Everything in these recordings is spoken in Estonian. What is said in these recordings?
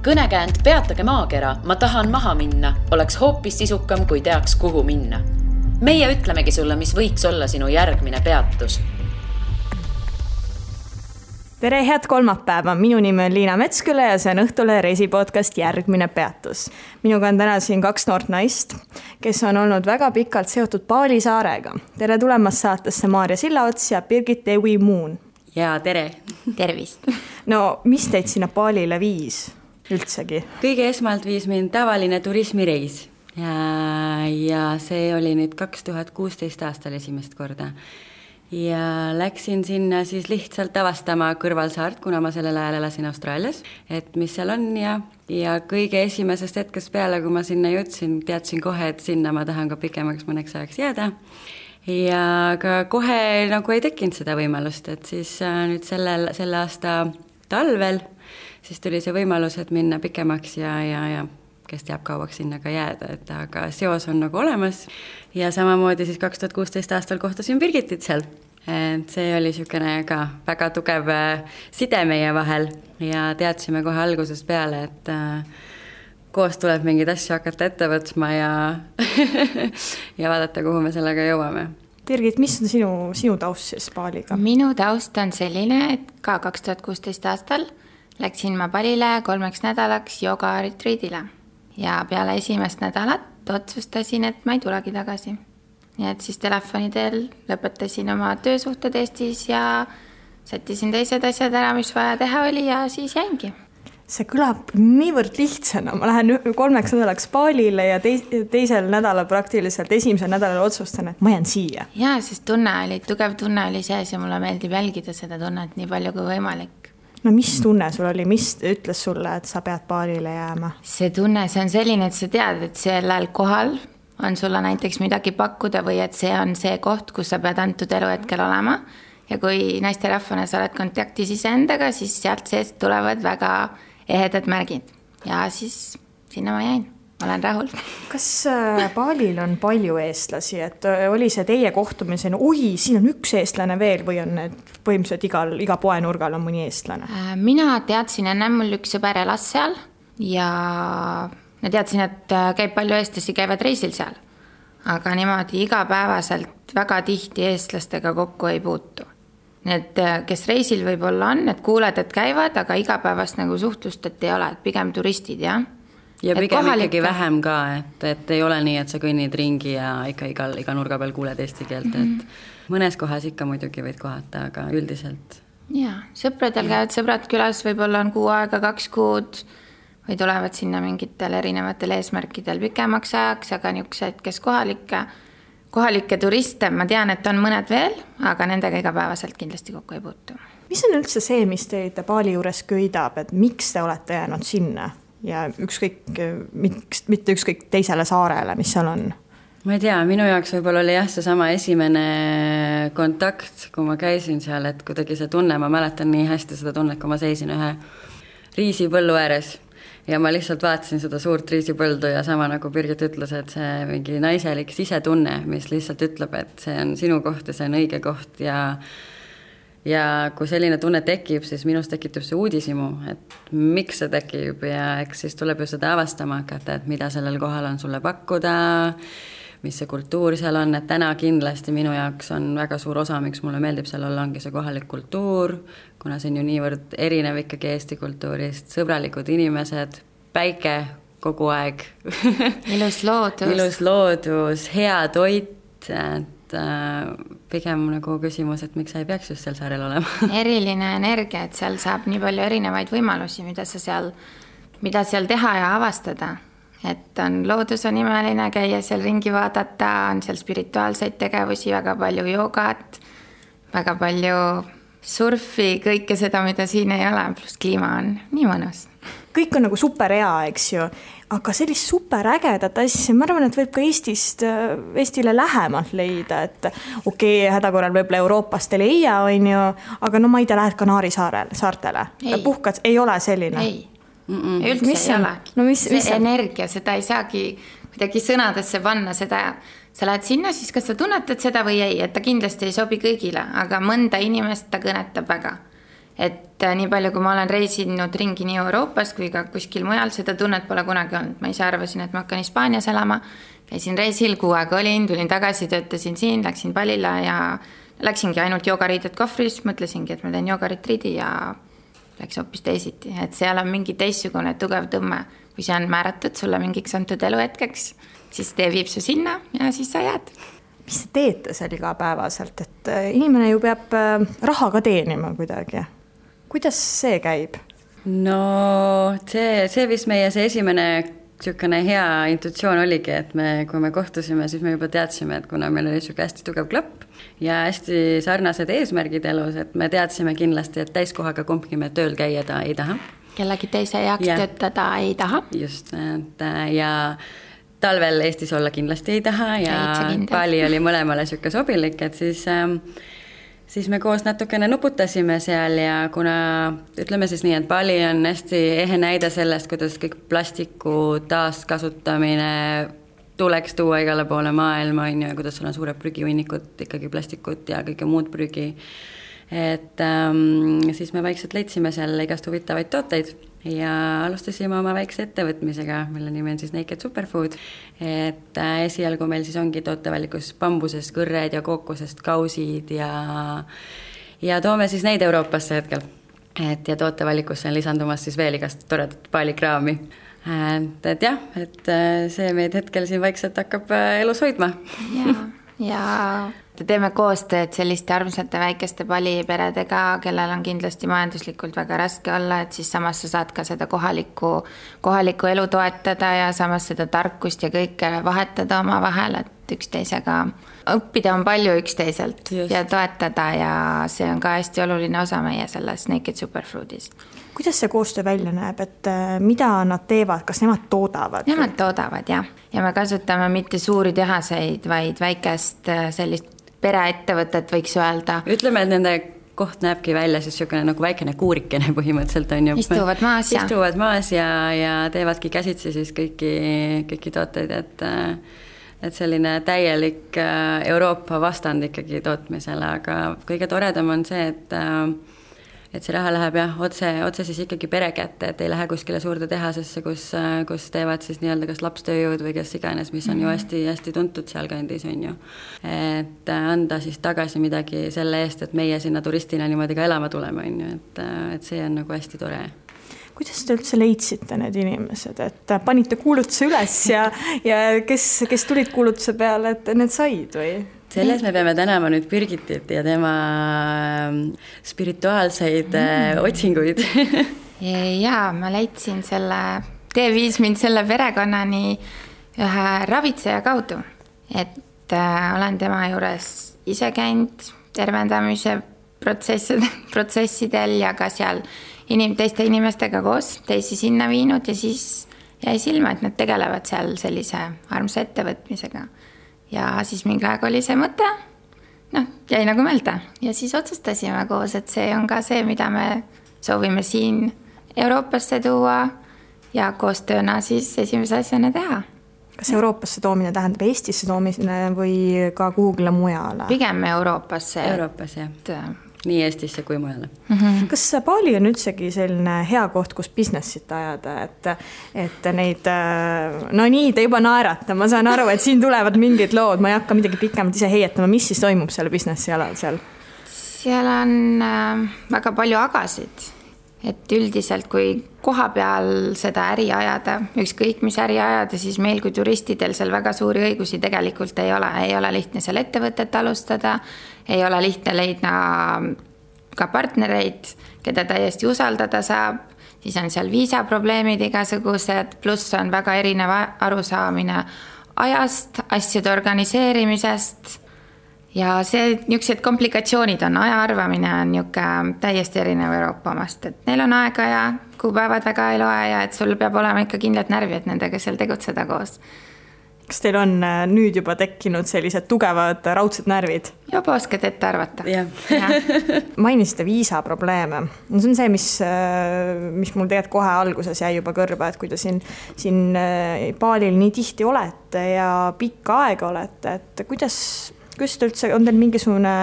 Kõnekäänd Peatage maakera, ma tahan maha minna, oleks hoopis sisukam, kui teaks, kuhu minna. Meie ütlemegi sulle, mis võiks olla sinu järgmine peatus. Tere, head kolmapäeva. Minu nimi on Liina Metsküla ja see on Õhtule reisipodcast Järgmine peatus. Minuga on täna siin 2 noort naist, kes on olnud väga pikalt seotud Paali saarega. Tere tulemast saatesse Maarja Sillaots ja Birgit Ewi Muun. Ja tere. Tervist. No, mis teid sinna Paalile viis üldsegi? Kõige esmalt viis mind tavaline turismireis ja see oli nüüd 2016 aastal esimest korda. Ja läksin sinna siis lihtsalt avastama kõrvalsaart, kuna ma sellel ajal elasin Austraalias, et mis seal on ja kõige esimesest hetkest peale, kui ma sinna jõudsin, teadsin kohe, et sinna ma tahan ka pikemaks mõneks ajaks jääda. Ja ka kohe nagu ei tekkinud seda võimalust, et siis nüüd selle aasta talvel siis tuli see võimalus, et minna pikemaks ja kes teab kauaks sinna ka jääda, et aga seos on nagu olemas. Ja samamoodi siis 2016 aastal kohtasin Birgitit seal. Et see oli niisugune ka väga tugev side meie vahel ja teadsime kohe algusest peale, et koos tuleb mingeid asju hakata ette võtma ja vaadata, kuhu me sellega jõuame. Birgit, mis on sinu taust siis Paaliga? Minu taust on selline, et ka 2016 aastal läksin ma Palile 3 nädalaks jooga-retriidile ja peale esimest nädalat otsustasin, et ma ei tulegi tagasi. Nii et siis telefoni teel lõpetasin oma töösuhted Eestis ja sättisin teised asjad ära, mis vaja teha oli ja siis jäingi. See kõlab niivõrd lihtsana. Ma lähen 3 nädalaks Paalile ja teisel nädalal praktiliselt esimesel nädalal otsustan, et ma jään siia. Jaa, sest tugev tunne oli sees ja mulle meeldib jälgida seda tunnet nii palju kui võimalik. No mis tunne sul oli? Mis ütles sulle, et sa pead Paalile jääma? See tunne, see on selline, et sa tead, et sellel kohal on sulle näiteks midagi pakkuda või et see on see koht, kus sa pead antud eluhetkel olema. Ja kui naisterahvana sa oled kontaktis iseendaga, siis sealt seest tulevad väga ehedad märgid. Ja siis sinna ma jäin. Ma olen rahul. Kas Paalil on palju eestlasi, et oli see teie kohtumisen, siin on üks eestlane veel või on need põhimõtteliselt iga poenurgal on mõni eestlane? Mina teadsin enne, mul üks sõber elas seal ja ma teadsin, et käib palju eestlasi, käivad reisil seal. Aga niimoodi igapäevaselt väga tihti eestlastega kokku ei puutu. Need, kes reisil võib-olla on, et kuuled, et käivad, aga igapäevast nagu suhtlust, et ei ole, et pigem turistid, jah. Ja pigem ikkagi vähem ka, et ei ole nii, et sa kõnnid ringi ja ikka iga nurga peal kuuled eesti keelt, et mõnes kohas ikka muidugi võid kohata, aga üldiselt. Jaa, sõpradel käivad sõbrad külas, võib-olla on 6 aega, 2 kuud või tulevad sinna mingitel erinevatel eesmärkidel pikemaks ajaks, aga niisugused, kes kohalikke turiste, ma tean, et on mõned veel, aga nendega igapäevaselt kindlasti kokku ei puutu. Mis on üldse see, mis teid Paali juures köidab, et miks te olete jäänud sinna? Ja mitte ükskõik teisele saarele, mis seal on? Ma ei tea, minu jaoks võib-olla oli see sama esimene kontakt, kui ma käisin seal, et kuidagi see tunne, ma mäletan nii hästi seda tunnet, kui ma seisin ühe riisipõllu ääres ja ma lihtsalt vaatasin seda suurt riisipõldu ja sama nagu Birgit ütles, et see mingi naiselik sisetunne, mis lihtsalt ütleb, et see on sinu koht ja see on õige koht ja kui selline tunne tekib, siis minust tekitub see uudisimu, et miks see tekib ja eks siis tuleb ju seda avastama hakata, et mida sellel kohal on sulle pakkuda, mis see kultuur seal on, et täna kindlasti minu jaoks on väga suur osa, miks mulle meeldib seal olla, ongi see kohalik kultuur, kuna see on ju niivõrd erinev ikkagi Eesti kultuurist, sõbralikud inimesed, päike kogu aeg. Ilus loodus, hea toit, pigem nagu küsimus, et miks sa ei peaks just seal saarel olema. Eriline energia, et seal saab nii palju erinevaid võimalusi, mida seal teha ja avastada. Et loodus on imeline, käia seal ringi vaadata, on seal spirituaalseid tegevusi, väga palju joogat, väga palju surfi, kõike seda, mida siin ei ole, pluss kliima on nii mõnus. Kõik on nagu super hea, eks ju, aga sellist super ägedat asja, ma arvan, et võib ka Eestile lähemalt leida, et hädakorral võib-olla Euroopast ei leia, on ju, aga no ma ei tea, lähed Kanaari saartele. Puhkad, ei ole selline? Ei, üldse ei ole. No, see energia, seda ei saagi kuidagi sõnadesse panna, seda sa lähed sinna, siis kas sa tunnetad seda või ei, et ta kindlasti ei sobi kõigile, aga mõnda inimest ta kõnetab väga. et nii palju, kui ma olen reisinud ringi nii Euroopas kui ka kuskil mujal, seda tunnet pole kunagi olnud. Ma ise arvasin, et ma hakkan Hispaanias elama, käisin reisil, 6 aega olin, tulin tagasi, töötasin siin, läksin palile ja läksingi ainult joogariided kohvris, mõtlesingi, et ma teen joogaritriidi ja läks hoopis teisiti. Et seal on mingi teissugune tugev tõmme, kui see on määratud sulle mingiks antud eluhetkeks, siis tee viib su sinna ja siis sa jääd. Mis te teete seal igapäevaselt, et inimene ju peab raha ka teenima kuidagi. Kuidas see käib? No see vist meie see esimene niisugune hea intuitsioon oligi, et kui me kohtusime, siis me juba teadsime, et kuna meil oli niisugune hästi tugev klapp ja hästi sarnased eesmärgid elus, et me teadsime kindlasti, et täiskohaga kumbki me tööl käia ta ei taha. Kellegi teise jaoks töötada ei taha. Just, ja talvel Eestis olla kindlasti ei taha ja Bali oli mõlemale niisugune sobilik, et siis me koos natukene nuputasime seal ja kuna ütleme siis nii, et Bali on hästi ehe näide sellest, kuidas kõik plastiku taaskasutamine tuleks tuua igale poole maailma, ja kuidas sul on suured prügihunnikud, ikkagi plastikut ja kõike muud prügi. Et siis me vaikselt leidsime seal igast huvitavaid tooteid ja alustasime oma väikse ettevõtmisega, mille nimi on siis Naked Superfood. Et esialgu meil siis ongi tootevalikus bambusest kõrred ja kookosest kausid ja toome siis neid Euroopasse hetkel. Et ja tootevalikusse on lisandumas siis veel igast toredat paalikraami. Et jah, et see meid hetkel siin vaikselt hakkab elus hoidma. Ja teeme koostööd selliste armsate väikeste paliperedega, kellel on kindlasti majanduslikult väga raske olla, et siis samas sa saad ka seda kohalikku elu toetada ja samas seda tarkust ja kõike vahetada oma vahel, et üksteisega õppida on palju üksteiselt ja toetada ja see on ka hästi oluline osa meie selles Naked Superfoodis. Kuidas see koostöö välja näeb, et mida nad teevad, kas nemad toodavad? Nemad toodavad, jah. Ja me kasutame mitte suuri tehaseid, vaid väikest sellist pereettevõtet võiks öelda. Ütleme, et nende koht näebki välja siis niisugune nagu väikene kuurikene põhimõtteliselt on ju. Istuvad maas ja teevadki käsitsi siis kõiki tooteid, et selline täielik Euroopa vastand ikkagi tootmisele, aga kõige toredam on see, et see raha läheb otse siis ikkagi pere kätte, et ei lähe kuskile suurde tehasesse, kus teevad siis nii-öelda kas lapstööjõud või kes iganes, mis on ju hästi tuntud seal kandis, on ju. Et anda siis tagasi midagi selle eest, et meie sinna turistina niimoodi ka elama tuleme, on ju, et see on nagu hästi tore. Kuidas te üldse leidsite need inimesed, et panite kuulutuse üles ja kes tulid kuulutuse peale, et need said või? Selles me peame tänama nüüd Birgitit ja tema spirituaalseid otsinguid. Jaa, ma leidsin viis mind selle perekonnani ühe ravitseja kaudu, et olen tema juures ise käinud tervendamise protsessidel ja ka seal teiste inimestega koos teisi sinna viinud ja siis jäi silma, et nad tegelevad seal sellise armsa ettevõtmisega. Ja siis mingi aeg oli see mõte, jäi nagu meelde ja siis otsustasime koos, et see on ka see, mida me soovime siin Euroopasse tuua ja koostööna siis esimese asjana teha. Kas Euroopasse toomine tähendab Eestisse toomine või ka kuhugile mujale? Pigem Euroopasse. Euroopas, jah. Nii Eestisse kui mujale. Kas Bali on üldsegi selline hea koht, kus businessit ajada, et neid, nii te juba naerata, ma saan aru, et siin tulevad mingid lood, ma ei hakka midagi pikemalt ise heietama, mis siis toimub selle businessi alal seal? Seal on väga palju agasid, et üldiselt kui koha peal seda äri ajada, ükskõik mis äri ajada, siis meil kui turistidel seal väga suuri õigusi tegelikult ei ole lihtne seal ettevõtet alustada, ei ole lihtne leida ka partnereid, keda täiesti usaldada saab, siis on seal viisaprobleemid igasugused, pluss on väga erinev arusaamine ajast, asjade organiseerimisest ja niisugused komplikatsioonid on, aja arvamine on täiesti erinev Euroopa omast, et neil on aega ja kuupäevad väga ei loe ja et sul peab olema ikka kindlad närvid nendega seal tegutseda koos. Kas teil on nüüd juba tekkinud sellised tugevad raudsed närvid? Juba oskad ette arvata. Mainisite viisaprobleeme. See on see, mis mul tegelikult kohe alguses jäi juba kõrba, et kui te siin Balil nii tihti olete ja pikka aega olete, et kuidas te üldse, on teil mingisugune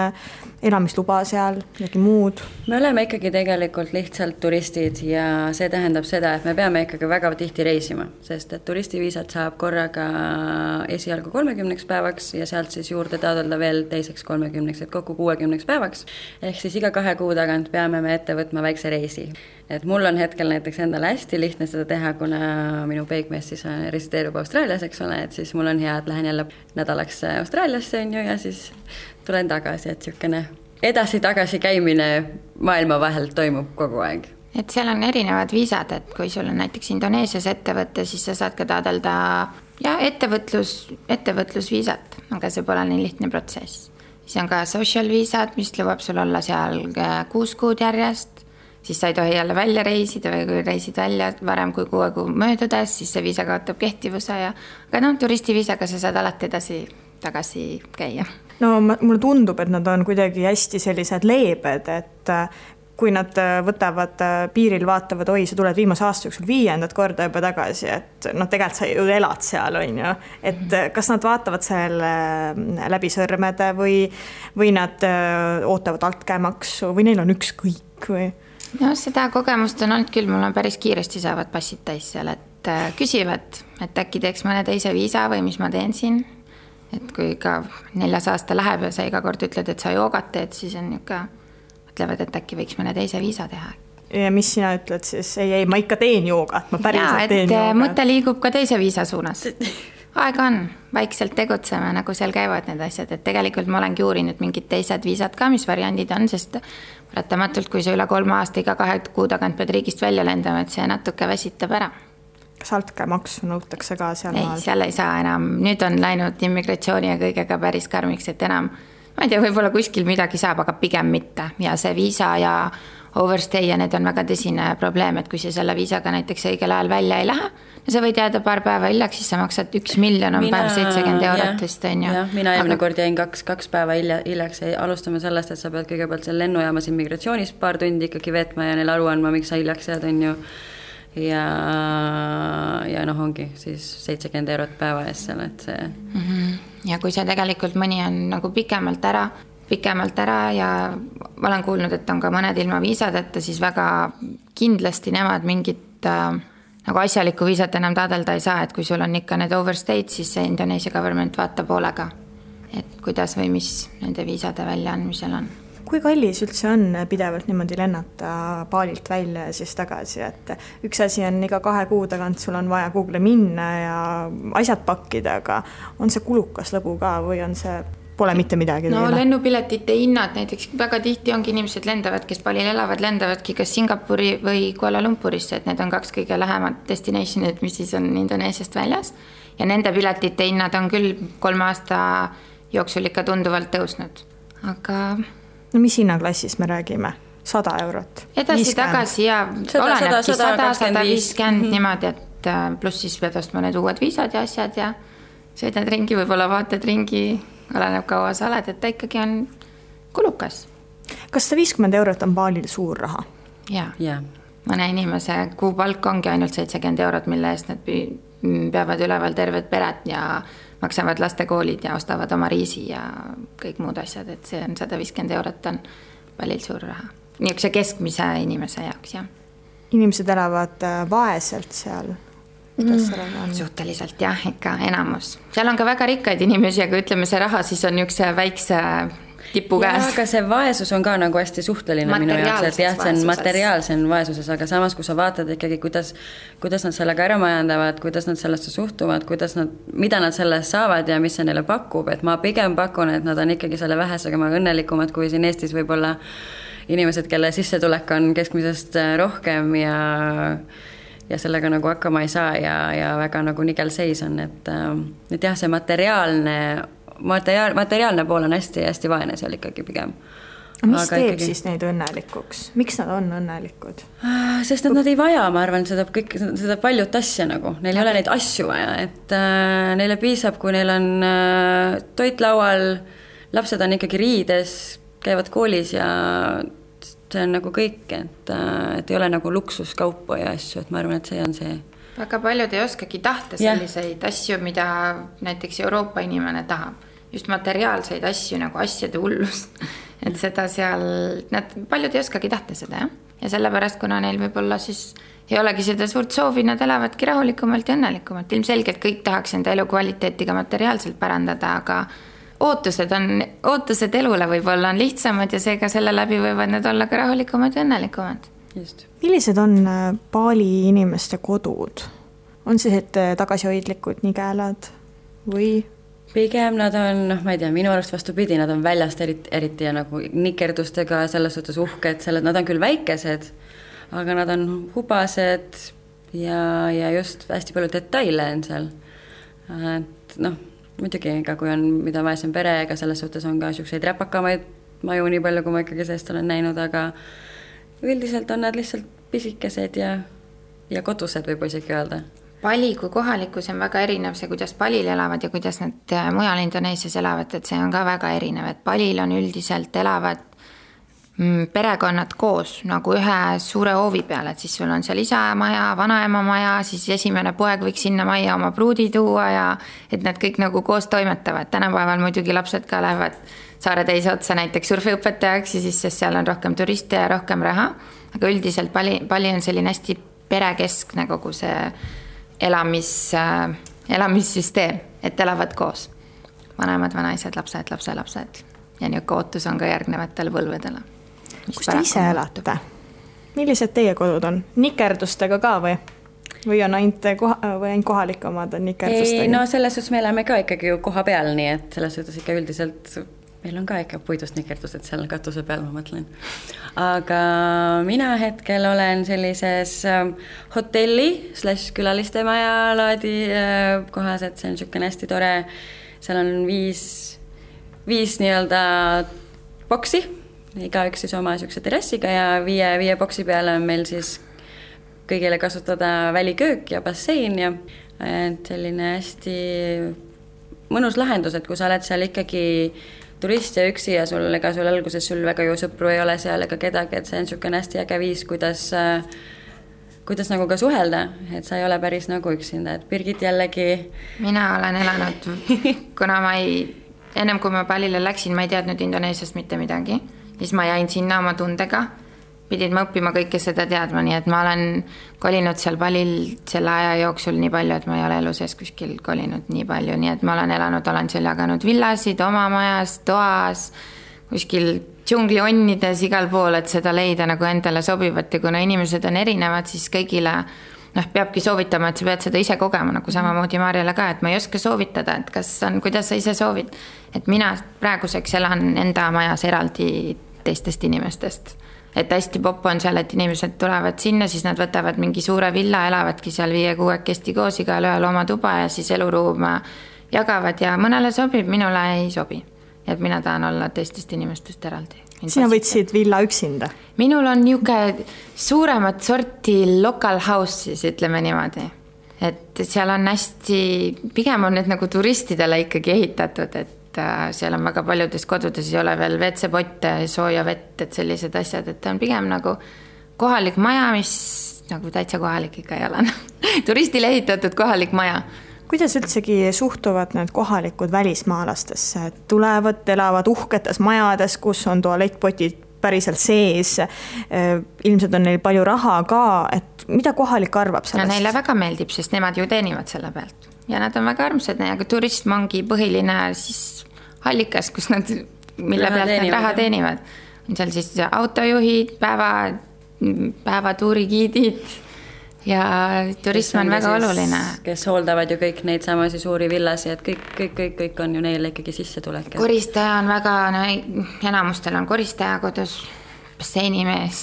elamisluba seal, midagi muud? Me oleme ikkagi tegelikult lihtsalt turistid ja see tähendab seda, et me peame ikkagi väga tihti reisima, sest et turistiviisat saab korraga esialgu 30 päevaks ja sealt siis juurde taotleda veel teiseks 30, et kokku 60 päevaks. Ehk siis iga 2 kuu tagant peame me ette võtma väikse reisi. Et mul on hetkel näiteks endale hästi lihtne seda teha, kuna minu peigmees siis resideerub Austraalias, eks ole, et siis mul on hea, et lähen jälle nädalaks Austraaliasse ja siis tulen tagasi, et niisugune edasi-tagasi käimine maailma vahel toimub kogu aeg. Et seal on erinevad viisad, et kui sul on näiteks Indoneesias ettevõte, siis sa saad ka taotleda ettevõtlusviisat, aga see pole nii lihtne protsess. Siis on ka social viisad, mis lubab sul olla seal 6 kuud järjest, siis sa ei tohi jälle välja reisida või kui reisid välja varem kui 6 kuu möödudes, siis see viisa kaotab kehtivuse aga turistiviisaga sa saad alati tagasi käia. No mulle tundub, et nad on kuidagi hästi sellised leebed, et kui nad võtavad piiril, vaatavad, oi, sa tuled viimase aasta jooksul 5. korda juba tagasi, et tegelikult sa ju elad seal, on ju. Et kas nad vaatavad selle läbi sõrmede või nad ootavad altkäemaksu või neil on ükskõik või? No seda kogemust on olnud küll, mul on päris kiiresti saavad passid täis seal, et küsivad, et äkki teeks mõne teise viisa või mis ma teen siin. Et kui ka 4. aasta läheb ja sa iga kord ütled, et sa joogat teed, siis on mõtlevad, et äkki võiks mõne teise viisa teha. Ja mis sina ütled siis? Ei, ma ikka teen joogat, ma päriselt teen joogat. Mõte liigub ka teise viisa suunas. Aega on, vaikselt tegutseme, nagu seal käivad need asjad, et tegelikult ma olengi uurinud mingid teised viisad ka, mis variandid on, sest paratamatult, kui sa üle 3 aasta iga 2 kuu tagant pead riigist välja lendama, et see natuke väsitab ära. Kas altkäemaksu nõutakse ka seal maal? Ei, seal ei saa enam. Nüüd on läinud immigratsiooni ja kõigega päris karmiks, et enam, ma ei tea, võib-olla kuskil midagi saab, aga pigem mitte. Ja see viisa ja overstay ja need on väga tõsine probleem, et kui sa selle viisaga näiteks õigel ajal välja ei lähe, no sa võid jääda paar päeva hiljaks, siis sa maksad 1 miljon on päev 70 eurot vist, on ju. Mina eelmine kord jäin 2 päeva hiljaks, alustame sellest, et sa pead kõigepealt seal lennujaamas immigratsioonis paar tundi ikkagi veetma ja neil aru andma, miks sa hiljaks jääd, on ju. Ja ongi siis 70 eurot päeva eest seal, et see... Ja kui see tegelikult mõni on nagu pikemalt ära ja ma olen kuulnud, et on ka mõned ilma viisadeta, siis väga kindlasti nemad mingit nagu asjalikku viisat enam taotleda ei saa, et kui sul on ikka need overstayed, siis see Indoneesia government vaatab hoolega, et kuidas või mis nende viisade väljaandmisel on. Kui kallis üldse on pidevalt niimoodi lennata Balilt välja ja siis tagasi, et üks asi on iga 2 kuu tagant sul on vaja Google minna ja asjad pakkida, aga on see kulukas lõbu ka või on see, pole mitte midagi? No lennupiletite hinnad näiteks väga tihti ongi inimesed lendavad, kes Balil elavad, lendavadki kas Singapuri või Kuala Lumpurisse, et need on 2 kõige lähemad destinationid, mis siis on Indoneesiast väljas ja nende piletite hinnad on küll 3 aasta jooksul ikka tunduvalt tõusnud, aga... No mis hinnaklassis me räägime? 100 eurot? Edasi-tagasi ja olenebki 100-150 niimoodi, et pluss siis pead ostma need uued viisad ja asjad ja sõidad ringi, võib-olla vaatad ringi, oleneb kaua sa oled, et ta ikkagi on kulukas. Kas 150 eurot on Balil suur raha? Jaa. Mõne inimese kuupalk ongi ainult 70 eurot, mille eest nad peavad üleval terved pered ja maksavad lastekoolid ja ostavad oma riisi ja kõik muud asjad, et see on 150 eurot on Balil suur raha. Niisuguse keskmise inimese jaoks, jah. Inimesed elavad vaeselt seal? Suhteliselt jah, ikka enamus. Seal on ka väga rikkaid inimesi, aga ütleme see raha siis on niisuguse väikse tipu käes. Aga see vaesus on ka nagu hästi suhteline minu jaoks, et jah, see on materiaalsen vaesuses, aga samas, kui sa vaatad ikkagi, kuidas nad sellega ära majandavad, kuidas nad sellesse suhtuvad, mida nad sellest saavad ja mis see neile pakub, et ma pigem pakun, et nad on ikkagi selle vähesega õnnelikumad, kui siin Eestis võib-olla inimesed, kelle sissetulek on keskmisest rohkem ja sellega nagu hakkama ei saa ja väga nagu nigel seis on, et jah, see materiaalne pool on hästi vaene seal ikkagi pigem. Mis teeb siis neid õnnelikuks? Miks nad on õnnelikud? Sest nad ei vaja, ma arvan, seda paljut asja nagu. Neil ei ole neid asju vaja, et neile piisab, kui neil on toit laual, lapsed on ikkagi riides, käivad koolis ja see on nagu kõik, et ei ole nagu luksuskaupa ja asju, et ma arvan, et see on see. Väga paljud ei oskagi tahta selliseid asju, mida näiteks Euroopa inimene tahab. just materiaalseid asju nagu asjade hullus. Et seda seal, nad paljud ei oskagi tahta seda, jah. Ja sellepärast, kuna neil võib-olla siis ei olegi seda suurt soovi, nad elavadki rahulikumalt ja õnnelikumalt. Ilmselgelt kõik tahaks enda elukvaliteetiga materiaalselt pärandada, aga ootused elule võib-olla on lihtsamad ja seega selle läbi võivad need olla ka rahulikumad ja õnnelikumad. Just. Millised on Bali inimeste kodud? On siis tagasihoidlikud nigelad või? Pigem nad on, ma ei tea, minu arust vastupidi, nad on väljast eriti ja nagu nikerdustega selles suhtes uhked, nad on küll väikesed, aga nad on hubased ja just hästi palju detaile on seal. Et muidugi, kui on mida vaesem pere, ega selles suhtes on ka selliseid räpakamaid maju nii palju, kui ma ikkagi sellest olen näinud, aga üldiselt on nad lihtsalt pisikesed ja kodused võib isegi öelda. Bali kui kohalikus on väga erinev see, kuidas Balil elavad ja kuidas nad mujal Indoneesias elavad, et see on ka väga erinev, et Balil on üldiselt elavad perekonnad koos nagu ühe suure hoovi peal, et siis sul on seal isa maja, vanaema maja, siis esimene poeg võiks sinna majja oma pruudi tuua ja et nad kõik nagu koos toimetavad. Tänapäeval muidugi lapsed ka lähevad saare teise otsa näiteks surfiõpetajaks ja siis sest seal on rohkem turiste ja rohkem raha, aga üldiselt Bali on selline hästi perekeskne kogu see elamissüsteem, et elavad koos. Vanemad, vanaisad, lapsed, lapselapsed ja niisugune ootus on ka järgnevatele põlvedele. Kus te ise elate? Millised teie kodud on? Nikerdustega ka või on ainult kohalikumad on nikerdustega? Ei, no selles suhtes me elame ka ikkagi ju koha peal, nii et selles suhtes ikka üldiselt meil on ka ikka puidust nikerdused seal katuse peal, ma mõtlen. Aga mina hetkel olen sellises hotelli/külaliste maja laadi kohas, et see on niisugune hästi tore. Seal on viis nii-öelda boksi, igaüks siis oma niisuguse terrassiga ja viie boksi peale on meil siis kõigile kasutada väliköök ja bassein ja selline hästi mõnus lahendus, et kui sa oled seal ikkagi turist ja üksi ja sul alguses sul väga ju sõpru ei ole seal ega kedagi, et see on niisugune hästi äge viis, kuidas nagu ka suhelda, et sa ei ole päris nagu üksinda, et Birgit jällegi. Mina olen elanud, kuna ennem kui ma Balile läksin, ma ei teadnud Indoneesiast mitte midagi, siis ma jäin sinna oma tundega, pidin ma õppima kõike seda teadma, nii et ma olen kolinud seal Balil selle aja jooksul nii palju, et ma ei ole elu sees kuskil kolinud nii palju, nii et ma olen seal jaganud villasid oma majas, toas, kuskil džunglionides igal pool, et seda leida nagu endale sobivat ja kuna inimesed on erinevad, siis kõigile peabki soovitama, et sa pead seda ise kogema, nagu samamoodi Marjale ka, et ma ei oska soovitada, et kuidas sa ise soovid, et mina praeguseks elan enda majas eraldi teistest inimestest. Et hästi popp on seal, et inimesed tulevad sinna, siis nad võtavad mingi suure villa, elavadki seal 5-6 koos igal ühel oma tuba ja siis eluruum jagavad ja mõnele sobib, minule ei sobi. Et mina tahan olla teistest inimestest eraldi. Sina võtsid villa üksinda? Minul on niisugune suuremat sorti local house, siis ütleme niimoodi. Et seal on hästi, pigem on need nagu turistidele ikkagi ehitatud, et seal on väga paljudes kodudes ei ole veel WC-potte, sooja vett, et sellised asjad, et on pigem nagu kohalik maja, mis nagu täitsa kohalik ikka ei ole. Turistile ehitatud kohalik maja. Kuidas üldsegi suhtuvad need kohalikud välismaalastesse? Tulevad, elavad uhketes majades, kus on tualettpotid päriselt sees. Ilmselt on neil palju raha ka, et mida kohalik arvab sellest? No neile väga meeldib, sest nemad ju teenivad selle pealt. Ja nad on väga armsad, aga turism ongi põhiline siis allikas, kus nad, mille pealt nad raha teenivad. On seal siis autojuhid, päevatuurigiidid ja turism on väga oluline. Kes hooldavad ju kõik neid samasi suuri villasi, et kõik on ju neile ikkagi sissetulek. Koristaja on väga, enamustel on koristaja kodus, basseinimees,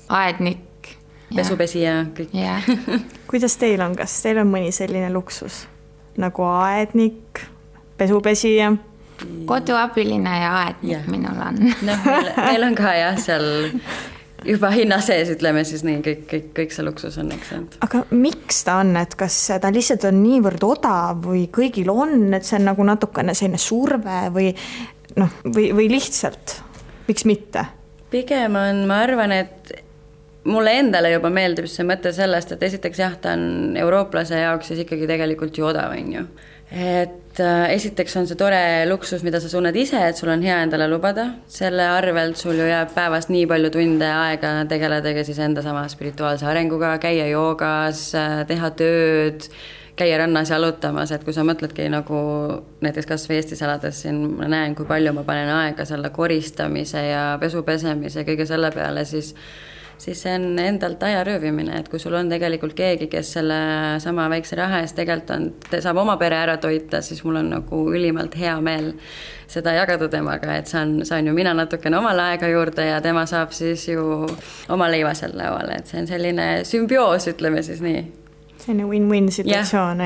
aednik. Pesupesija, kõik. Kuidas teil on, kas teil on mõni selline luksus? Nagu aednik, pesupesija? Koduabiline ja aednik minul on. Meil on ka jah, seal juba hinna sees, ütleme siis nii, kõik see luksus on, eks. Aga miks ta on, et kas ta lihtsalt on niivõrd odav või kõigil on, et see on nagu natukene selline surve või lihtsalt, miks mitte? Pigem on, ma arvan, et mulle endale juba meeldib see mõte sellest, et esiteks jah, ta on eurooplase jaoks siis ikkagi tegelikult ju odav, on ju. et esiteks on see tore luksus, mida sa tunned ise, et sul on hea endale lubada, selle arvelt sul ju jääb päevas nii palju tunde aega tegeledagi siis enda sama spirituaalse arenguga, käia joogas, teha tööd, käia rannas jalutamas, et kui sa mõtledki nagu näiteks kas või Eestis elades siin ma näen, kui palju ma panen aega selle koristamise ja pesu pesemise ja kõige selle peale, siis see on endalt aja röövimine, et kui sul on tegelikult keegi, kes selle sama väikse raha eest tegelikult saab oma pere ära toita, siis mul on nagu ülimalt hea meel seda jagada temaga, et saan ju mina natukene omale aega juurde ja tema saab siis ju oma leiva seal lauale, et see on selline sümbioos, ütleme siis nii. Selline win-win situatsioon,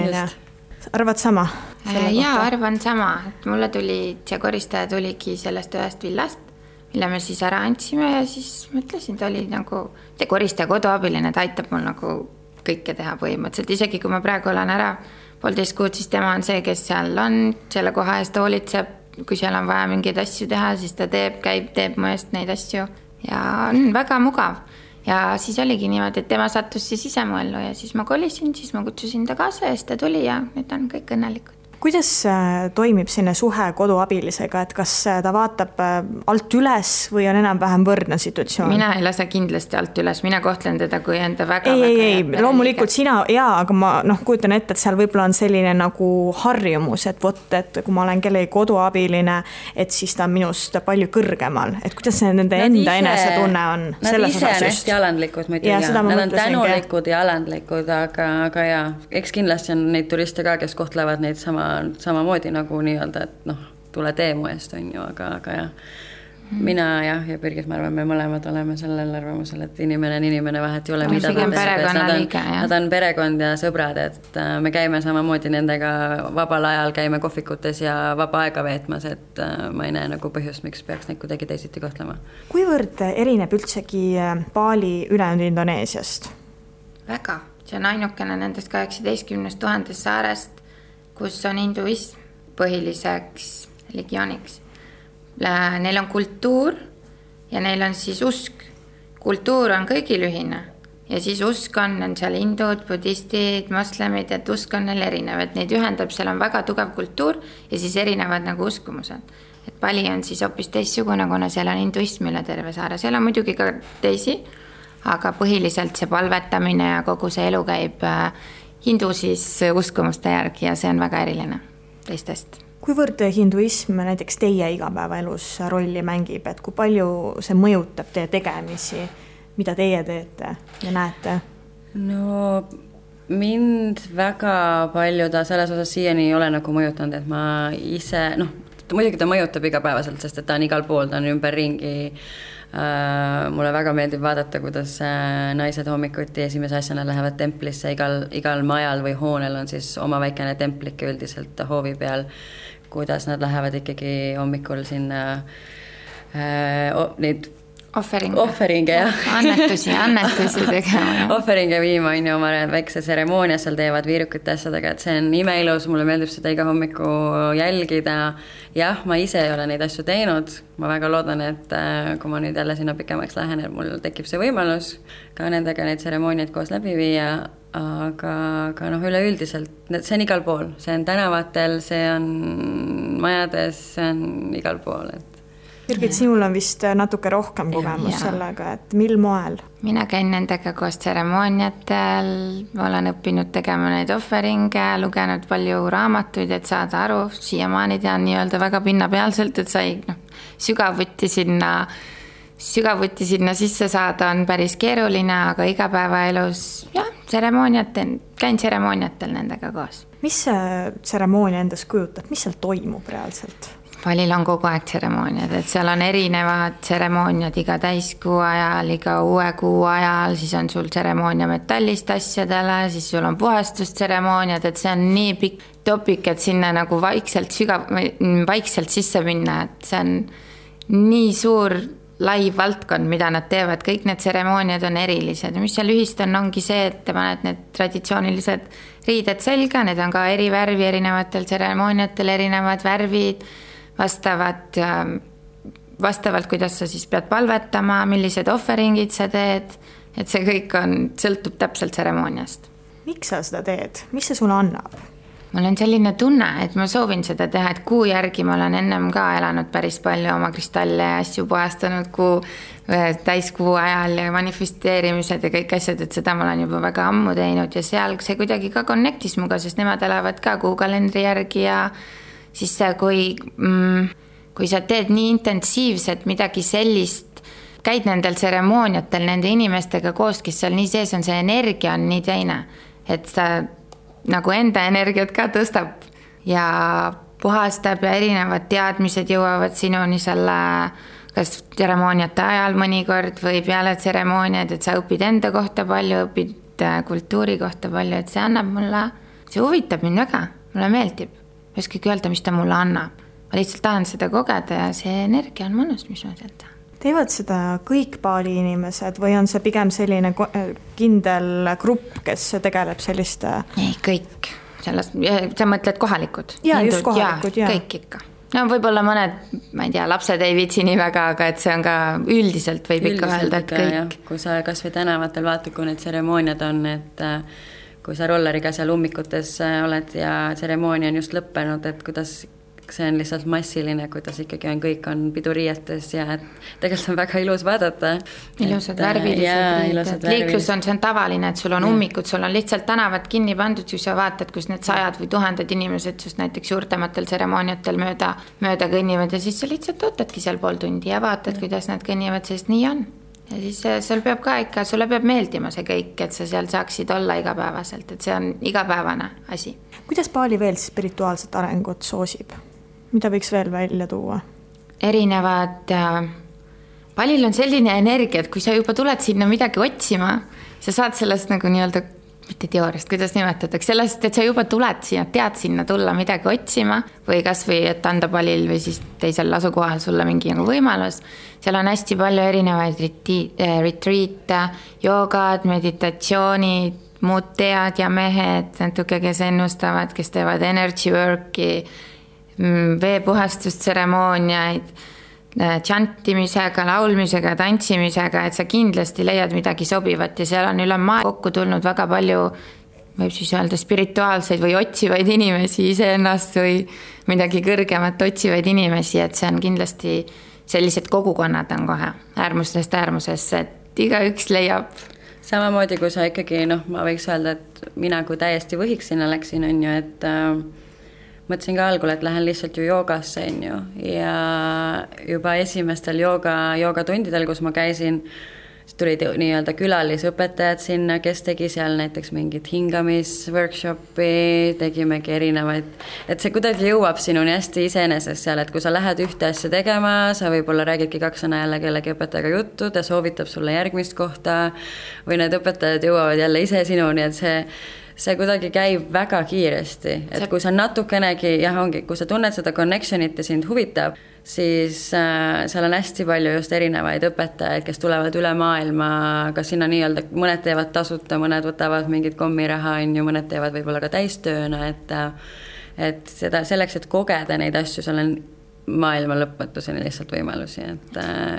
arvad sama? Jaa, arvan sama, et mulle see koristaja tuligi sellest ühest villast, mille me siis ära andsime ja siis mõtlesin, ta oli nagu see koristaja koduabiline, ta aitab mul nagu kõike teha põhimõtteliselt, isegi kui ma praegu olen ära 1,5 kuud, siis tema on see, kes seal on, selle koha eest hoolitseb, kui seal on vaja mingeid asju teha, siis ta teeb mu eest neid asju ja on väga mugav. Ja siis oligi niimoodi, et tema sattus siis ise mu ellu ja siis ma kolisin, siis ma kutsusin ta kaasa ja siis ta tuli ja nüüd on kõik õnnelikud. Kuidas toimib sinne suhe koduabilisega, et kas ta vaatab alt üles või on enam-vähem võrdne situatsioon? Mina ei lase kindlasti alt üles, mina kohtlen teda kui enda väga ei, loomulikult sina, aga ma kujutan ette, et seal võib-olla on selline nagu harjumus, et kui ma olen kellegi koduabiline, et siis ta on minust palju kõrgemal, et kuidas see nende enda enesetunne on? Nad ise on hästi alandlikud muidugi, nad on tänulikud ja alandlikud, aga jaa, eks kindlasti on neid turiste ka, kes kohtlevad neid samamoodi nagu nii-öelda, et tule tee mu eest on ju, aga jah. Mina ja Birgit, ma arvan, me mõlemad oleme sellel arvamusel, et inimene on inimene, vahet ei ole, mida nad on perekond ja sõbrad, et me käime samamoodi nendega vabal ajal, käime kohvikutes ja vaba aega veetmas, et ma ei näe nagu põhjust, miks peaks neid kuidagi teisiti kohtlema. Kuivõrd erineb üldsegi Bali ülejäänud Indoneesiast? Väga, see on ainukene nendest 18 000 saarest, kus on hinduism põhiliseks religiooniks. Neil on kultuur ja neil on siis usk. Kultuur on kõigil ühine ja siis usk on seal hindud, budistid, moslemid, et usk on neil erinev, et neid ühendab, seal on väga tugev kultuur ja siis erinevad nagu uskumused. Et Bali on siis hoopis teissugune, kuna seal on hinduism üle terve saare. Seal on muidugi ka teisi, aga põhiliselt see palvetamine ja kogu see elu käib hindu siis uskumuste järgi ja see on väga eriline teistest. Kuivõrd hinduism näiteks teie igapäevaelus rolli mängib, et kui palju see mõjutab teie tegemisi, mida teie teete ja näete? No mind väga palju ta selles osas siiani ei ole nagu mõjutanud, et ma ise, muidugi ta mõjutab igapäevaselt, sest et ta on igal pool, ta on ümber ringi. Mulle väga meeldib vaadata, kuidas naised hommikuti esimese asjana lähevad templisse, igal majal või hoonel on siis oma väikene templik üldiselt hoovi peal, kuidas nad lähevad ikkagi hommikul sinna neid Offeringe, jah. Annetusi tegema. Offeringe viima on ju oma väikse tseremoonia, seal teevad viirukite asjadega, et see on imeilus, mulle meeldib seda iga hommiku jälgida. Jah, ma ise ei ole neid asju teinud, ma väga loodan, et kui ma nüüd jälle sinna pikemaks lähen, et mul tekib see võimalus ka nendega neid tseremooniaid koos läbi viia, aga üleüldiselt, see on igal pool, see on tänavatel, see on majades, see on igal pool, et Birgit, sinul on vist natuke rohkem kogemus sellega, et mil moel? Mina käin nendega koos tseremooniatel, olen õppinud tegema neid offeringe, lugenud palju raamatuid, et saada aru, siiamaani tean nii-öelda väga pinnapealselt, et sai sügavuti sinna sisse saada on päris keeruline, aga igapäevaelus käin tseremooniatel nendega koos. Mis see tseremoonia endas kujutab, mis seal toimub reaalselt? Balil on kogu aeg tseremooniad, et seal on erinevad tseremooniad iga täiskuu ajal, iga uue kuu ajal, siis on sul tseremoonia metallist asjadele, siis sul on puhastustseremooniad, et see on nii pikk topik, et sinna nagu vaikselt sisse minna, et see on nii suur lai valdkond, mida nad teevad, kõik need tseremooniad on erilised. Mis seal ühist ongi see, et te paned need traditsioonilised riided selga, need on ka eri värvi erinevatel tseremooniatel, erinevad värvid, vastavalt, kuidas sa siis pead palvetama, millised offeringid sa teed, et see kõik sõltub täpselt tseremooniast. Miks sa seda teed? Mis see sulle annab? mul on selline tunne, et ma soovin seda teha, et kuu järgi ma olen ennem ka elanud päris palju oma kristalle ja asju puhastanud täiskuu ajal ja manifesteerimised ja kõik asjad, et seda ma olen juba väga ammu teinud ja seal see kuidagi ka connectis muga, sest nemad elavad ka kuukalendri järgi ja siis kui sa teed nii intensiivselt midagi sellist, käid nendel tseremooniatel nende inimestega koos, kes seal nii sees on, see energia on nii teine, et sa nagu enda energiat ka tõstab ja puhastab ja erinevad teadmised jõuavad sinuni selle kas tseremooniate ajal mõnikord või peale tseremooniaid, et sa õpid enda kohta palju, õpid kultuuri kohta palju, et see annab mulle, see huvitab mind väga, mulle meeldib. Ma ei oskagi öelda, mis ta mulle annab. Ma lihtsalt tahan seda kogeda ja see energia on mõnus, mis ma sealt tahan. Teevad seda kõik Bali inimesed või on see pigem selline kindel grupp, kes tegeleb selliste? Ei, kõik. Sa mõtled kohalikud? Ja, just kohalikud, ja. Kõik ikka. No võib-olla mõned, ma ei tea, lapsed ei viitsi nii väga, aga et see on ka üldiselt võib ikka öelda, et kõik. Ja. Kui sa kas või tänavatel vaatad, kui need tseremooniad on, et kui sa rolleriga seal ummikutes oled ja tseremoonia on just lõppenud, et kuidas see on lihtsalt massiline, kuidas ikkagi kõik on piduriietes ja tegelikult on väga ilus vaadata. Ilusad värvilised. Liiklus on, see on tavaline, et sul on ummikud, sul on lihtsalt tänavad kinni pandud, kui sa vaatad, kus need 100 või 1000 inimesed just näiteks suurtematel tseremooniatel mööda kõnnivad ja siis sa lihtsalt ootadki seal pool tundi ja vaatad, kuidas nad kõnnivad, sest nii on. Ja siis sul peab ka ikka, sulle peab meeldima see kõik, et sa seal saaksid olla igapäevaselt, et see on igapäevane asi. Kuidas Bali veel spirituaalset arengut soosib? Mida võiks veel välja tuua? Erinevad, Balil on selline energia, et kui sa juba tuled sinna midagi otsima, sa saad sellest nagu nii-öelda, mitte teooriast, kuidas nimetatakse, sellest, et sa juba tuled sinna, tead sinna tulla midagi otsima või kas või, et anda Balil või siis teisel asukohal sulle mingi nagu võimalus. Seal on hästi palju erinevaid retreate, joogad, meditatsioonid, muud tead ja mehed, natuke, kes ennustavad, kes teevad energy work'i, veepuhastustseremooniaid, tšantimisega, laulmisega, tantsimisega, et sa kindlasti leiad midagi sobivat ja seal on üle maa kokku tulnud väga palju, võib siis öelda spirituaalseid või otsivaid inimesi iseennast või midagi kõrgemat otsivaid inimesi, et see on kindlasti sellised kogukonnad on kohe äärmustest äärmusesse, et igaüks leiab. Samamoodi, kui sa ikkagi, ma võiks öelda, et mina kui täiesti võhiks sinna läksin, on ju, et mõtlesin ka algul, et lähen lihtsalt ju joogasse, on ju, ja juba esimestel joogatundidel, kus ma käisin, tulid nii-öelda külalisõpetajad sinna, kes tegi seal näiteks mingit hingamisworkshopi, tegimegi erinevaid, et see kuidagi jõuab sinuni hästi iseenesest seal, et kui sa lähed ühte asja tegema, sa võib-olla räägidki 2 sõna jälle kellegi õpetajaga juttu, ta soovitab sulle järgmist kohta või need õpetajad jõuavad jälle ise sinuni, et see kuidagi käib väga kiiresti, et kui sa natukenegi, kui sa tunned seda connectionit ja sind huvitab, siis seal on hästi palju just erinevaid õpetajaid, kes tulevad üle maailma, kas sinna nii-öelda, mõned teevad tasuta, mõned võtavad mingit kommiraha, mõned teevad võib-olla ka täistööna, et seda selleks, et kogeda neid asju, seal on maailma lõpmatuseni lihtsalt võimalusi,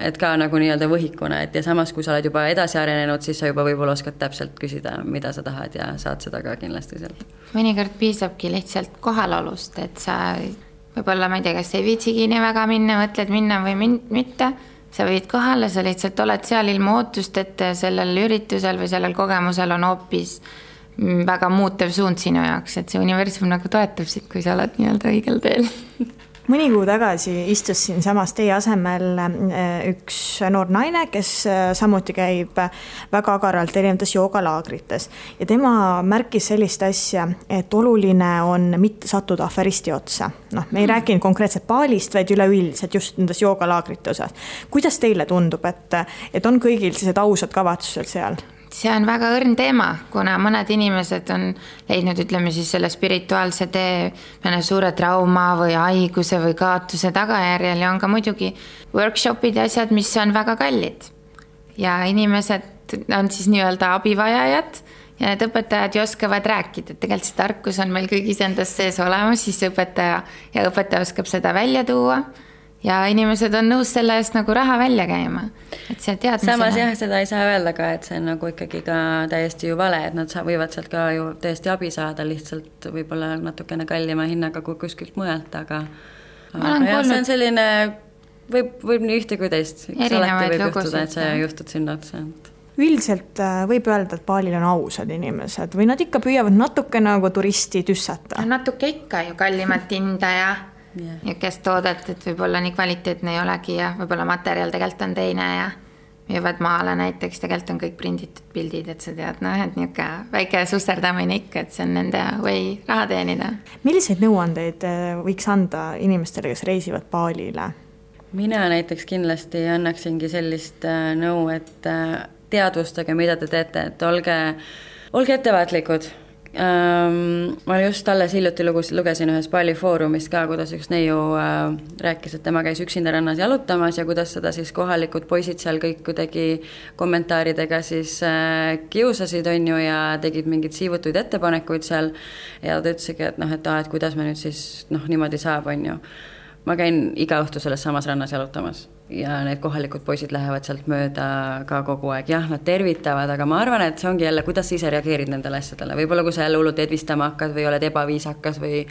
et ka nagu nii-öelda võhikuna, et ja samas, kui sa oled juba edasi arenenud, siis sa juba võib-olla oskad täpselt küsida, mida sa tahad ja saad seda ka kindlasti sealt. Mõnikord piisabki lihtsalt kohalolust, et sa võib-olla, ma ei tea, kas ei viitsigi nii väga minna, mõtled minna või mitte, sa võid kohale, sa lihtsalt oled seal ilma ootust, et sellel üritusel või sellel kogemusel on hoopis väga muutev suund sinu jaoks, et see universum nagu toetab sind, kui sa oled nii-öelda õigel teel. Mõni kuu tagasi istus siin samas teie asemel üks noor naine, kes samuti käib väga agaralt erinevates joogalaagrites ja tema märkis sellist asja, et oluline on mitte sattuda aferisti otsa. Me ei rääkinud konkreetselt Balist, vaid üleüldiselt just nendes joogalaagrite osas. Kuidas teile tundub, et on kõigil sellised ausad kavatsused seal? See on väga õrn teema, kuna mõned inimesed on leidnud, ütleme siis selle spirituaalse tee mõne suure trauma või haiguse või kaotuse tagajärjel ja on ka muidugi workshopid ja asjad, mis on väga kallid. Ja inimesed on siis nii-öelda abivajajad ja need õpetajad oskavad rääkida, et tegelikult see tarkus on meil kõigis endas sees olemas, siis õpetaja oskab seda välja tuua ja inimesed on nõus selle eest nagu raha välja käima. Et see teadmisena. Samas jah, seda ei saa öelda ka, et see on nagu ikkagi ka täiesti ju vale, et nad võivad sealt ka ju täiesti abi saada, lihtsalt võib-olla natukene kallima hinnaga kui kuskilt mujalt, aga jah, see on selline, võib nii ühte kui teist. Alati võib juhtuda, et see juhtud sinna otsa. Üldiselt võib öelda, et baalil on ausad inimesed või nad ikka püüavad natuke nagu turisti tüssata? Natuke ikka ju kallimat hinda ja kes toodet, et võib-olla nii kvaliteetne ei olegi ja võib-olla materjal tegelikult on teine ja müüvad maale näiteks, tegelikult on kõik prinditud pildid, et sa tead, et niisugune väike susserdamine ikka, et see on nende või raha teenida. Milliseid nõuandeid võiks anda inimestele, kes reisivad baalile? Mina näiteks kindlasti annaksingi sellist nõu, et teadvustage, mida te teete, et olge ettevaatlikud. Ma just alles hiljuti lugesin ühes Bali foorumist ka, kuidas üks neiu rääkis, et tema käis üksinda rannas jalutamas ja kuidas seda siis kohalikud poisid seal kõik kuidagi kommentaaridega siis kiusasid on ju ja tegid mingid siivutuid ettepanekuid seal ja ta ütlesigi, et kuidas me nüüd siis niimoodi saab on ju. Ma käin iga õhtu selles samas rannas jalutamas ja need kohalikud poisid lähevad sealt mööda ka kogu aeg. Jah, nad tervitavad, aga ma arvan, et see ongi jälle, kuidas sa ise reageerid nendele asjadele. Võib-olla kui sa jälle hullult edvistama hakkad või oled ebaviisakas või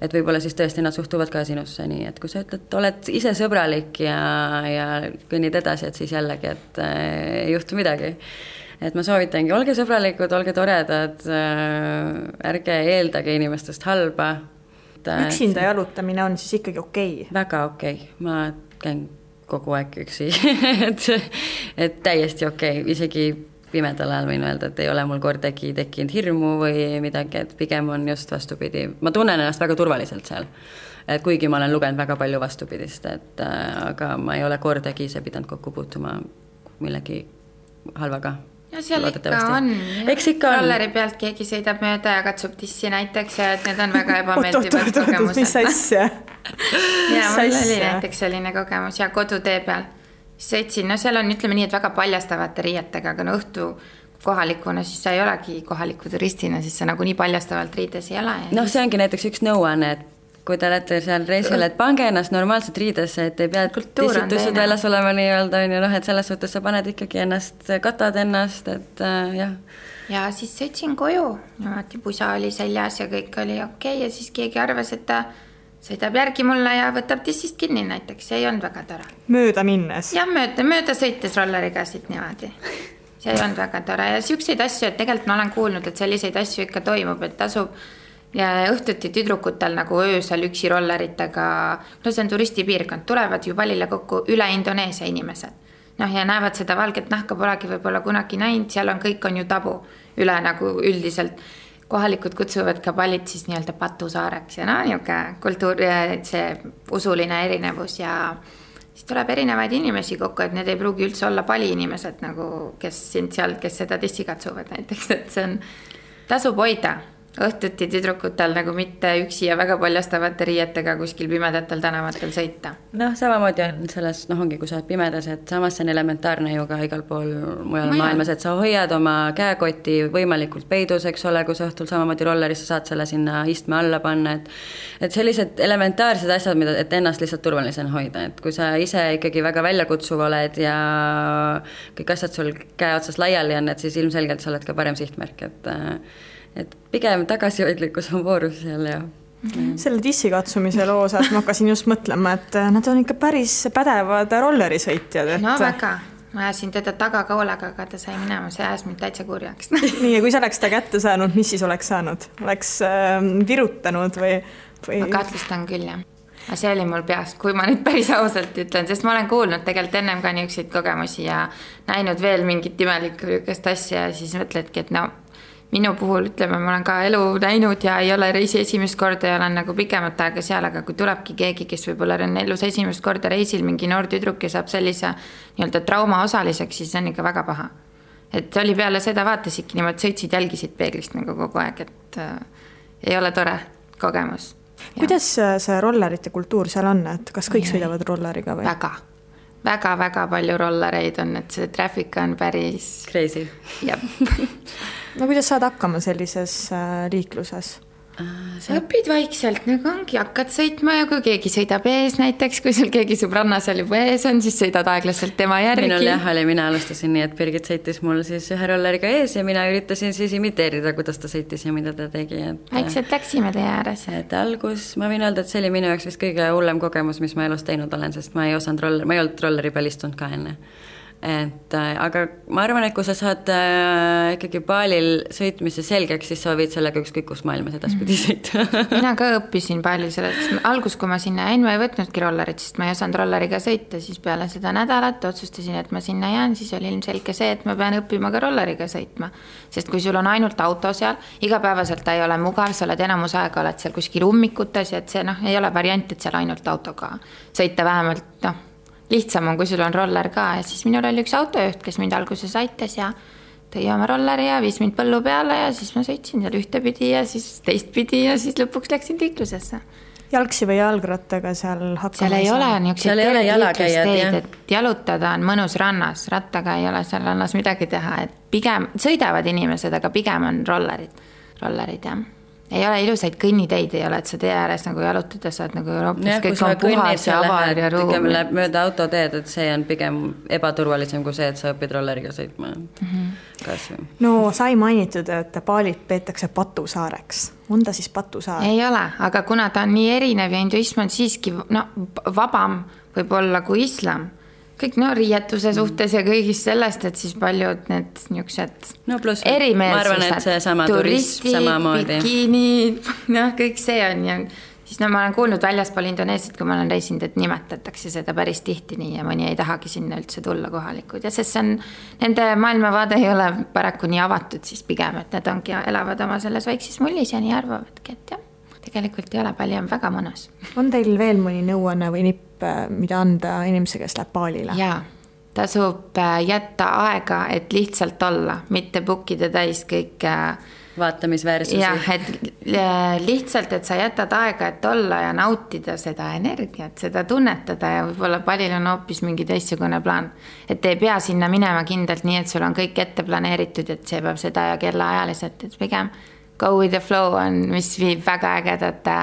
et võib-olla siis tõesti nad suhtuvad ka sinusse nii, et kui sa ütled, oled ise sõbralik ja kõnnid edasi, et siis jällegi, et ei juhtu midagi. Et ma soovitangi, olge sõbralikud, olge toredad, ärge eeldage inimestest halba. Üksinda jalutamine on siis ikkagi okei? Väga okei. Ma käin kogu aeg üksi, et täiesti okei. Isegi pimedal ajal võin öelda, et ei ole mul kordagi tekkinud hirmu või midagi, et pigem on just vastupidi. Ma tunnen ennast väga turvaliselt seal, et kuigi ma olen lugenud väga palju vastupidist, aga ma ei ole kordagi ise pidanud kokku puutuma millegi halvaga. Ja seal ikka on. Rolleri pealt keegi sõidab mööda ja katsub tissi näiteks ja et need on väga ebameeldivad kogemused. Mis asja? Ja mul oli näiteks selline kogemus ja kodutee peal. Sõitsin, seal on ütleme nii, et väga paljastavate riietega, aga õhtu kohalikuna, siis sa ei olegi kohaliku turistina, siis sa nagu nii paljastavalt riides ei ole. See ongi näiteks üks nõuanne, et kui te olete seal reisil, et pange ennast normaalselt riidesse, et ei pea tissitused väljas olema nii-öelda, et selles suhtes sa paned ikkagi ennast, katad ennast, et jah. Ja siis sõitsin koju, pusa oli seljas ja kõik oli okei ja siis keegi arvas, et ta sõidab järgi mulle ja võtab tissist kinni näiteks, see ei olnud väga tore. Mööda minnes? Ja mööda sõites rolleriga siit niimoodi. See ei olnud väga tore ja siukseid asju, et tegelikult ma olen kuulnud, et selliseid asju ikka toimub, et tasub ja õhtuti tüdrukutel nagu öösel üksi rolleritega, see on turistipiirkond, tulevad ju Balile kokku üle Indoneesia inimesed. Ja näevad seda valget nahka, polegi võib-olla kunagi näinud, seal on kõik on ju tabu üle nagu üldiselt. Kohalikud kutsuvad ka Balit siis nii-öelda patusaareks ja niuke kultuur, see usuline erinevus ja siis tuleb erinevaid inimesi kokku, et need ei pruugi üldse olla Bali inimesed, nagu kes sind seal, kes seda tissi katsuvad näiteks, et see on tasub hoida. Õhtuti tüdrukutel nagu mitte üksi ja väga paljastavate riietega kuskil pimedatel tänavatel sõita. Samamoodi on selles, ongi kui sa oled pimedas, et samas see on elementaarne ju ka igal pool mujal maailmas, et sa hoiad oma käekoti võimalikult peidus, eks ole, kui sa õhtul samamoodi rollerisse saad selle sinna istme alla panna, et sellised elementaarsed asjad, et ennast lihtsalt turvalisena hoida, et kui sa ise ikkagi väga väljakutsuv oled ja kõik asjad sul käe otsas laiali on, et siis ilmselgelt sa oled ka parem sihtmärk, et pigem tagasihoidlikkus on voorus seal ja selle tissi katsumise loos, et ma hakkasin just mõtlema, et nad on ikka päris pädevad rollerisõitjad. No väga, ma ajasin teda tagakoolega, aga ta sai minema, see ajas mind täitsa kurjaks. Nii, ja kui sa oleks ta kätte saanud, mis siis oleks saanud? Oleks virutanud või? Ma kahtlustan küll, jah. Aga see oli mul peas, kui ma nüüd päris ausalt ütlen, sest ma olen kuulnud tegelikult ennem ka niisuguseid kogemusi ja näinud veel mingit imelikku asja ja siis mõtledki, et minu puhul, ütleme, ma olen ka elu näinud ja ei ole reisi esimest korda ja olen nagu pikemat aega seal, aga kui tulebki keegi, kes võib-olla on elus esimest korda reisil, mingi noor tüdruk ja saab sellise nii-öelda trauma osaliseks, siis on ikka väga paha. Et oli peale seda vaatasidki niimoodi, sõitsid, jälgisid peeglist nagu kogu aeg, et ei ole tore kogemus. Kuidas see rollerite kultuur seal on, et kas kõik sõidavad rolleriga või? Väga palju rollereid on, et see traffic on päris crazy. Jab. No kuidas saad hakkama sellises liikluses? õpid vaikselt, nagu ongi, hakkad sõitma ja kui keegi sõidab ees näiteks, kui sul keegi sõbranna seal juba ees on, siis sõidad aeglaselt tema järgi. Minul jah oli, mina alustasin nii, et Birgit sõitis mul siis ühe rolleriga ees ja mina üritasin siis imiteerida, kuidas ta sõitis ja mida ta tegi. Vaikselt läksime teie ääres. Et algus, ma võin öelda, et see oli minu jaoks vist kõige hullem kogemus, mis ma elus teinud olen, sest ma ei olnud rolleri peal istunud ka enne. Aga ma arvan, et kui sa saad ikkagi baalil sõitmise selgeks, siis sa võid sellega ükskõik kus maailmas edaspidi sõita. Mina ka õppisin palju sellest. Algus, kui ma sinna jäin, ma ei võtnudki rollerit, sest ma ei osanud rolleriga sõita, siis peale seda nädalat otsustasin, et ma sinna jään, siis oli ilmselge see, et ma pean õppima ka rolleriga sõitma. Sest kui sul on ainult auto seal, igapäevaselt ta ei ole mugav, sa oled enamus aega, oled seal kuskil ummikutes ja et see ei ole variant, et seal ainult autoga sõita vähemalt, lihtsam on, kui sul on roller ka ja siis minul oli üks autojuht, kes mind alguses aitas ja tõi oma rolleri ja viis mind põllu peale ja siis ma sõitsin seal ühtepidi ja siis teistpidi ja siis lõpuks läksin liiklusesse. Jalgsi või jalgrattaga seal hakkama? Seal ei ole niisugused liiklusteid, et jalutada on mõnus rannas, rattaga ei ole seal rannas midagi teha, et pigem sõidavad inimesed, aga pigem on rollerid jah. Ei ole ilusaid kõnniteid, ei ole, et sa tee ääres nagu jalutada saad nagu Euroopas, kõik on puhas ja avar ja ruum. Mööda autoteed, et see on pigem ebaturvalisem kui see, et sa õpid rolleriga sõitma. No sai mainitud, et Baalit peetakse patusaareks. On ta siis patusaar? Ei ole, aga kuna ta on nii erinev ja hinduism on siiski vabam võib-olla kui islam, kõik riietuse suhtes ja kõigist sellest, et siis paljud need niisugused erimeelsused. Ma arvan, et see sama turism samamoodi. Bikiinid, kõik see on ja siis ma olen kuulnud väljaspool Indoneesiat, kui ma olen reisinud, et nimetatakse seda päris tihti nii ja mõni ei tahagi sinna üldse tulla kohalikud ja sest see on, nende maailmavaade ei ole paraku nii avatud siis pigem, et need ongi elavad oma selles väikses mullis ja nii arvavadki, et jah, tegelikult ei ole palju, on väga mõnus. On teil veel mõni nõuanne või nipp, mida anda inimese, kes läheb Baalile? Jaa, tasub jätta aega, et lihtsalt olla, mitte bookida täis kõik vaatamisväärsusi. Jah, et lihtsalt, et sa jätad aega, et olla ja nautida seda energiat, seda tunnetada ja võib-olla palil on hoopis mingi teistsugune plaan. Et ei pea sinna minema kindlalt nii, et sul on kõik ette planeeritud, et see peab seda ja kellaajaliselt, et pigem go with the flow on, mis viib väga ägedate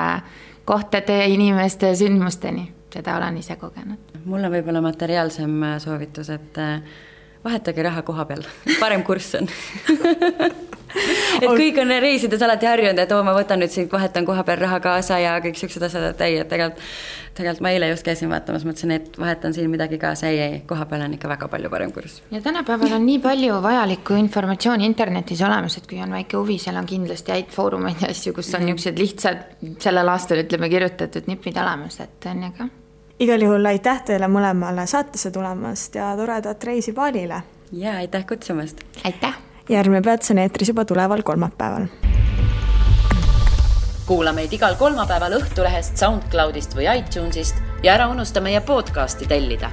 kohtade, inimeste ja sündmusteni. Seda olen ise kogenud. Mul on võib-olla materiaalsem soovitus, et vahetage raha koha peal. Parem kurss on. Et kõik on reisides alati harjunud, et ma võtan nüüd siin, vahetan koha peal raha kaasa ja kõik siuksed asjad, et ei, et tegelikult ma eile just käisin vaatamas, mõtlesin, et vahetan siin midagi kaasa, ei, koha peal on ikka väga palju parem kurss. Ja tänapäeval on nii palju vajalikku informatsiooni internetis olemas, et kui on väike huvi, seal on kindlasti häid foorumeid ja asju, kus on niisugused lihtsad sellel aastal, ütleme, kirjutatud nipid olemas, et on ja ka. Igal juhul aitäh teile mõlemale saatesse tulemast ja toredat reisi Baalile. Ja aitäh kutsumast. Aitäh. Järgmine Peats on eetris juba tuleval kolmapäeval. Kuula meid igal kolmapäeval Õhtulehest, SoundCloudist või iTunesist ja ära unusta meie podcasti tellida.